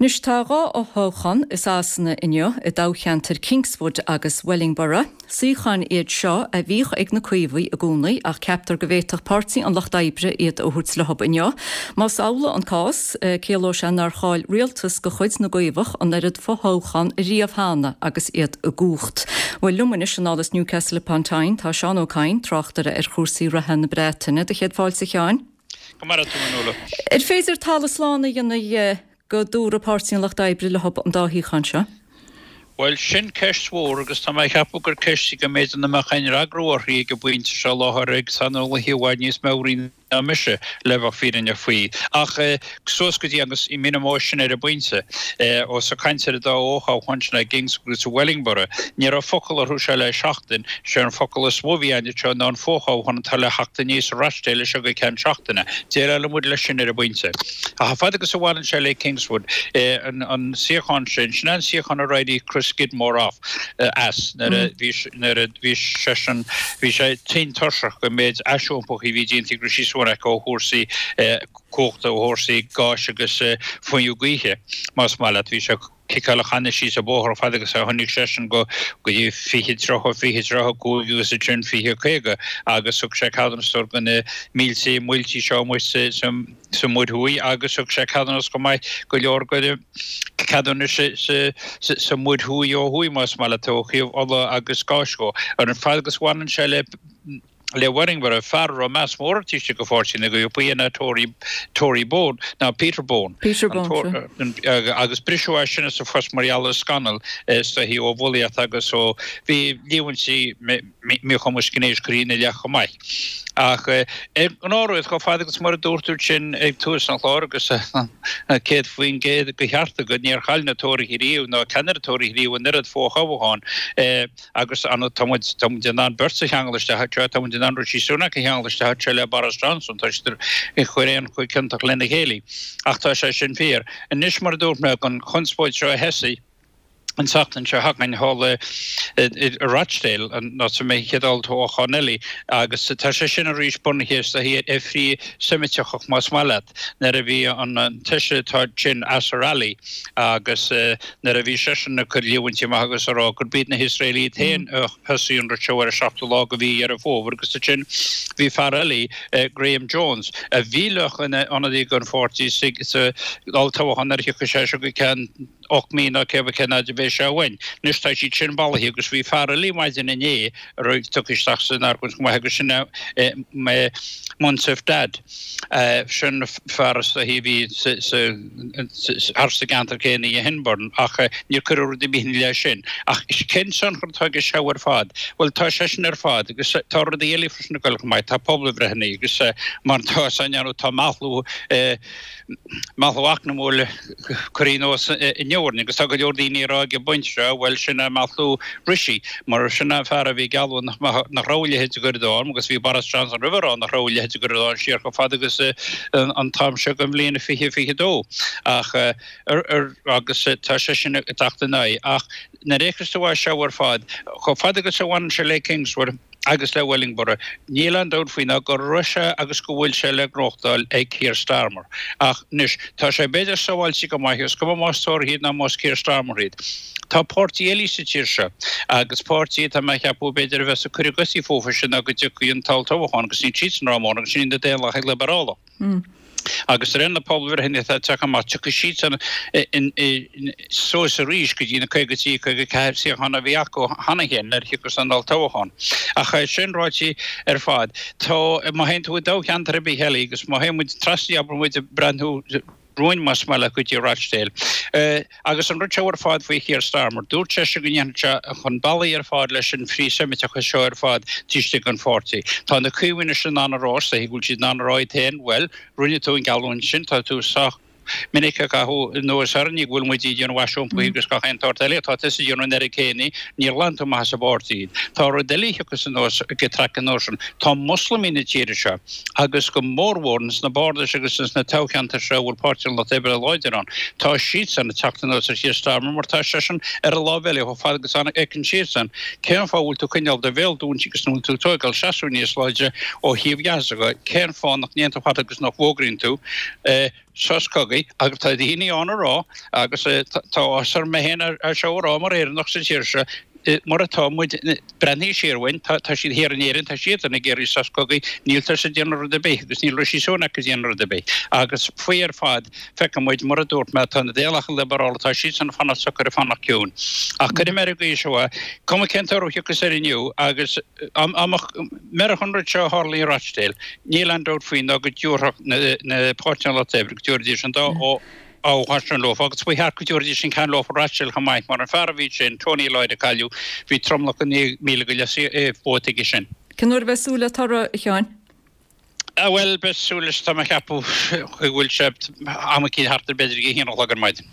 Anois tá 2 fhothoghchán i Sasana inniu, i dtoghcheantair Kingswood agus Wellingborough. Suíocháin iad seo a bhíodh ag na Caomhaigh i gcónaí ach ceaptar go bhféadfadh Páirtí an Lucht Oibre iad a thabhairt leo inniu. Más amhlaidh an cás, ciallóidh sé nár chaill rialtas de chuid na gCaomhach an oiread fothoghchán riamh cheana agus iad i gcumhacht. Bhuel, liom anois anall as Newcastle upon Tyne tá Seán Ó Cadhain, tráchtaire ar chúrsaí reatha na Breataine. Do chéad fáilte, a Sheáin. Go maire tú, a Nuala. Ar féidir talamh slán a dhéanamh dhe go dtabharfaidh Páirtí an Lucht Oibre leo an dá shuíochán seo? Bhuel, sin ceist mhór agus tá mé ag ceapadh gur ceist í go mb'fhéidir nach mbeadh aon fhreagra uirthi ag an bpointe seo i láthair ag saineolaithe i bhfad níos meabhraí ná mise, le bheith fírinneach faoi. Ach suas go dtí agus i mí na mbó sin ar an bpointe, ós ag caint ar an dá fhothoghchán sin i gKingswood agus i Wellingborough, ní raibh focal orthu seo le seachtain. Sé an focal is mó a bhí ann anseo ná an fothoghchán atá le theacht aníos i Rochdale as seo go ceann seachtaine. Déileálfaidh muid leis sin ar an bpointe. Ach fad agus a bhaineann sé le Kingswood, an suíochán sin, sin é an suíochán ar éirigh Chris Skidmore off as nuair a bhí nuair a bhí seisean, bhí sé tinn tuirseach den méid aisiompaithe a bhí déanta ag Rishi Sunak ó chúrsaí cumhachta, ó chúrsaí gáis agus fuinneamh gaoithe, más maith leat. Bhí sé ag ciceáil a channa síos an bóthar fad agus a tháinig seisean go go dtí 20, 30, 20, 35 agus ansin 20, 50 agus thug sé ceadúnas do na mílte muilte seo amuigh sa sa Mhuir Thuaidh agus thug sé ceadúnas chomh maith go leor de cheadúnais sa Mhuir Thuaidh ó thuaidh más maith leat ó thaobh ola agus gáis dhó. Ar an fad agus bhaineann sé le le Wellingborough, fear a raibh meas mór air taobh istigh de pháirtí na gCaomhach, ba é Tory Tory Bone ná Peter Bone. Peter Bone, sea. Agus briseadh as sin as a phost mar gheall ar scannal is dóichí ó bhulaíocht agus ó bhí líomhaintí míchumas gnéis curtha ina leith chomh maith. Ach ar ngnáthrud, chomh fada agus mar a dúirt tú sin ag tús an chláir agus 100% de cheart agat, níor chaill na Tóraithe riamh ná ceannaire Tóraithe riamh an oiread fothoghchán agus tá muid tá muid in ann beirt a cheangal isteach anseo, tá muid in ann Rishi Sunak a cheangal isteach anseo le Boris Johnson, tá siad ag cur aon chomh ciontach lena chéile. Ach tá sé sin fíor. Anois mar a dúirt mé, an chonspóid seo a thosaigh, an tseachtain seo chugainn thall i Rochdale, an áit a mbeidh an chéad olltoghchán eile, agus tá sé sin arís bunaithe is dóichí ar frith-Seimíteachas más maith leat, nuair a bhí an feisire atá ansin Azhar Ali agus nuair a bhí seisean ag cur líomhaintí amach agus ag rá gurb iad na hIosraelaigh iad féin a thosaigh an rud seo ar an seachtú lá de mhí Dheireadh Fómhair agus ansin bhí fear eile, Graham Jones, a bhí le bheith ina ionadaí don pháirtí sa olltoghchán nuair a thiocfaidh sé seo go ceann 8 mí nó cé cén fhad a bheidh sé uainn. Anois tá siad sin bailithe agus bhí fear eile maidin inné a raibh tugtha isteach san argóint chomh maith agus sin é Munasif Dad. Sin fear is dóichí a bhí thar sa gceantar céanna i Henburn ach níor cuireadh rud ar bith ina leith sin. Ach cén tionchar atá aige seo ar fad? Bhuel tá sé sin ar fad agus tá rudaí eile freisin ag dul chomh maith. Tá pobalbhreitheanna agus mar atá a fhios againn tá meathlú Meathlú eacnamúil curtha anuas inniu orainn agus tá go leor daoine ag rá ag an bpointe seo, bhuel, sin é meathlú Rishi, mar sin é an fear a bhí ag gealladh nach raibh a leithéid de ghoir i ndán agus bhí Boris Johnson roimhe ag rá nach raibh a leithéid de ghoir i ndán siar chomh fada agus an t-am seo den bhliain 2022. Ach, agus tá sé sin ag teacht in aghaidh. Ach nuair a fhéachas tú air seo ar fad, chomh fada agus a bhaineann sé le Kingswood, agus le Wellingborough. Níl aon dabht faoi ná go raibh sé agus go bhfuil sé le gnóthachtáil ag Keir Starmer. Ach anois, tá sé b'fhéidir sábháilte go maith, is cuma más Tóraithe iad ná más Keir Starmer iad. Tá páirtí eile sa tír seo, agus páirtí atá mé a cheapadh b'fhéidir a bheas ag cur a gcosaí fúthu sin ná go dtiocfaidh an t-olltoghchán agus níl siadsan rómhór agus sin iad na Daonlathaigh Liobrálach. Agus de réir na pobalbhreitheanna atá ag teacht amach, tiocfaidh siadsan suas arís go dtí na 53, 54 suíochán a bhí acu cheana féin nuair a thiocfas an olltoghchán. Ach é sin ráite ar fad, tá, má théann tú i dtoghcheantar ar bith eile agus má théann muid trasna, abair muid ag breathnú romhainn más maith leat go dtí Rochdale, Agus an rud seo ar fad faoi Keir Starmer, dúirt seisean go ndéanfadh sé chun bealaigh ar fad leis an frith-Seimiteachas seo ar fad taobh istigh den pháirtí. Tá na Caomhaigh anois in ann a rá, is dóichí go bhfuil siad in ann a rá iad féin, bhuel, rinne tú an geallúint sin, tá tú sách minic ag caitheamh anuas orainn go bhfuil muid ag déanamh aisiompaithe agus gach aon tsórt eile, tá tusa ag déanamh an oiread céanna, níor ghlan tú amach as an bpáirtí iad. Tá rud eile a thiocfas anuas ag traic an uair sin, tá Moslamaigh na tíre seo, agus go mórmhór ins na bardais agus ins na toghcheantair seo a bhfuil Páirtí an Lucht Oibre láidir ann, tá siadsan ag teacht anuas ar Keir Starmer mar tá seisean ar an láimh eile chomh fada agus a fheiceann siadsan cén fáth a bhfuil tú ag coinneáil do bhéal dúinte agus nach bhfuil tú ag tóigeáil seasamh níos láidre ó thaobh Ghaza de, cén fáth nach ndéanann tú fad agus nach bhfógraíonn tú. Sos cogaidh agus tá daoine ann a rá agus tá áthas orm mé féin é seo a rá mar Éireannach sa tír seo, mar atá muid, breathnaigh siar uainn, tá siad thiar in Éirinn, tá siadsan ag iarraidh sos cogaidh, níltear ag déanamh rud ar bith agus níl Rishi Sunak ag déanamh rud ar bith. Agus faoi ar fad, feicfidh muid, mar a dúirt mé, tá na Daonlathaithe Liobrálach, tá siadsan ag fanacht socair, ag fanacht ciúin. Ach cuirfidh mé ar an gcaoi seo é, cuma cén toradh a thiocfas air inniu agus dá mbeadh an rud seo a tharla i Rochdale, níl aon dabht faoi ná go dtabharfadh na Páirtí an Lucht Oibre, go dtabharfaidís an dá thoghchán sin leofa agus ba cheart go dtabharfaidís an ceann leofa Rochdale chomh maith mar an fear a bhí ansin, Tony Lloyd a cailleadh, bhí tromlach de 9,000 go leith vóta aige sin. Cén uair a bheidh súil le toradh, a Sheáin? Bhuel, beidh súil leis, tá mé ag ceapadh go bhfuil sé am eicínt thart ar b'fhéidir ag a haon a chlog ar maidin.